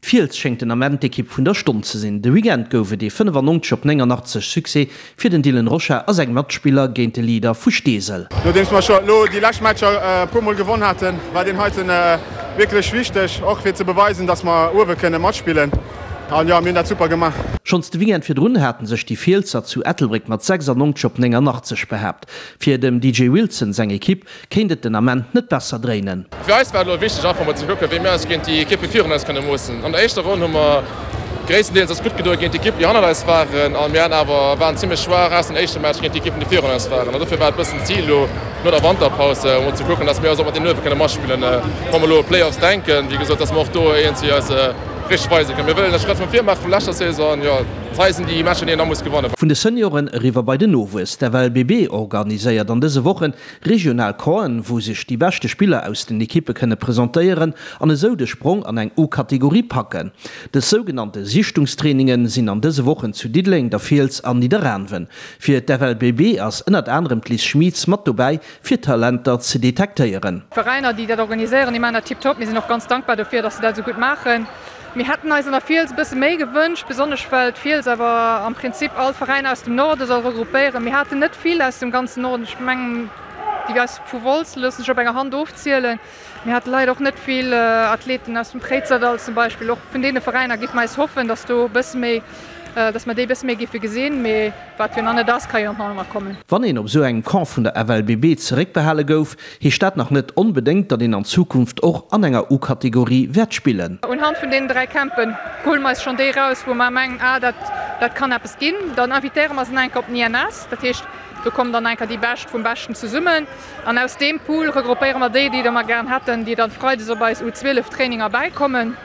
D'Fiels schéngt den Ament d'Ekipp vun der Stonn ze sinn. De Weekend gouf et ee 95 op 89 Succès fir den Dylan Rocha a seng Matspiller géint de Leader vu Steesel. Nodeems mer scho elo déi lescht Matcher e puer mol gewonn haten, war deen heiten wierklech wichteg, och fir ze beweisen, dass mer uewe kënne matspillen. An jo, mir hunn dat super gemaach. Schonns de Weekend virdrun haten sech déi Fielser zu Ettelbréck mat 96 op 89 behaapt. Fir dem DJ Wilson seng Ekipp kéint et den Ament net besser dréinen. Fir eis war et elo wichteg einfach mol ze kucken, wéi mir eis géint déi Ekippe virun eis kënne moossen. An der éischter Ronn hu mer gréisstendeels eis gutt gedoe géint d'Ekippen, déi hannert eis waren a mir haten awer waren zimmlech schwaach aus dem éischte Match géint déi Ekippen, déi virun eis waren. An dofir war et e bëssen d'Zil elo no der Wanterpaus emol ze kucken, dass mir eis och mat deenen uewe kënne matspillen. Wa mer elo u Playoffs denken, wéi gesot, dass mer och do iergendwéi eis richteg weise kënnen. Mir wëllen e Schrëtt no vir maache vu leschter Saison an jo, hei sinn déi Matcher, déi een da muss gewannen. Vun de Senioren eriwwer bei den Nowuess. D'FLBB organiséiert an dëse Wochen Regional Campen, wou sech déi beschte Spiller aus den Ekippe kënne presentéieren an esou de Sprong an eng U-Kategorie packen. Dës sougenannte Sichtungstrainingen sinn an dëse Wochen zu Diddeleng, der Fiels an Nidderaanwen. Fir d'FLBB ass ënnert anerem d'Liz Schmieds mat dobäi, fir Talenter ze detektéieren. D'Veräiner, déi dat organiséieren, déi maachen dat tiptop. Mir sinn och ganz dankbar dofir, dass se dat esou gutt maachen. Mir hätten eis an der Fiels e bësse méi gewënscht, besonnesch well d'Fiels awer am Prinzip all d'Veräiner aus dem Norde soll regroupéieren. Mir haten net vill aus dem ganzen Norden, ech mengen déi aus vu Wolz loosse sech op enger Hand ofzielen. Mir hate leider och net vill Athleten aus dem Préizerdall zum Beispill. Och vun deene Veräiner géife mer eis hoffen, datt do e bësse méi, datt mer déi e bësse méi géife gesinn. Mee wat jo nach net ass, ka jo nach ëmmer kommen. Wann een op esou engem Camp vun der FLBB zeréckbehale gouf, Heescht dat nach net onbedéngt, datt een an Zukunft och an enger U-Kategorie wäert spillen. Unhand vun deenen 3 Campen huele mer eis schonn déi eraus, wou mer mengen, ah dat dat kann eppes ginn. Dann invitéiere mer se nach eng Kéier op den INS. Dat heescht, do kommen dann nach eng Kéier déi Bescht vum Beschten zesummen. An aus deem Pool regroupéiere mer déi, déi da mer gären hätten, déi dann freides op eis U12 Traininger bäikommen.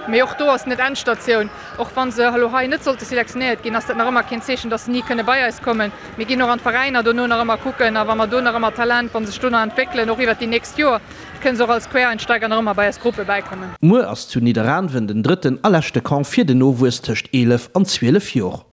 Mee och do ass net Endstatioun. Och wa se elo hei net sollte selektionéiert ginn, ass dat nach ëmmer keen Zeechen, dass se ni kënne bei eis kommen. Mir ginn och an d'Veräiner dono nach ëmmer kucken a wa mer do nach ëmmer Talent, wa se sech do nach entwéckelen, och iwwert déi nächst Joer, kënne se och als Quereinsteiger nach ëmmer bei eis Gruppe bäikommen. Muer ass zu Nidderaanwen den drëtten a leschte Camp fir den Nowuess tëscht 11 an 12 Jor.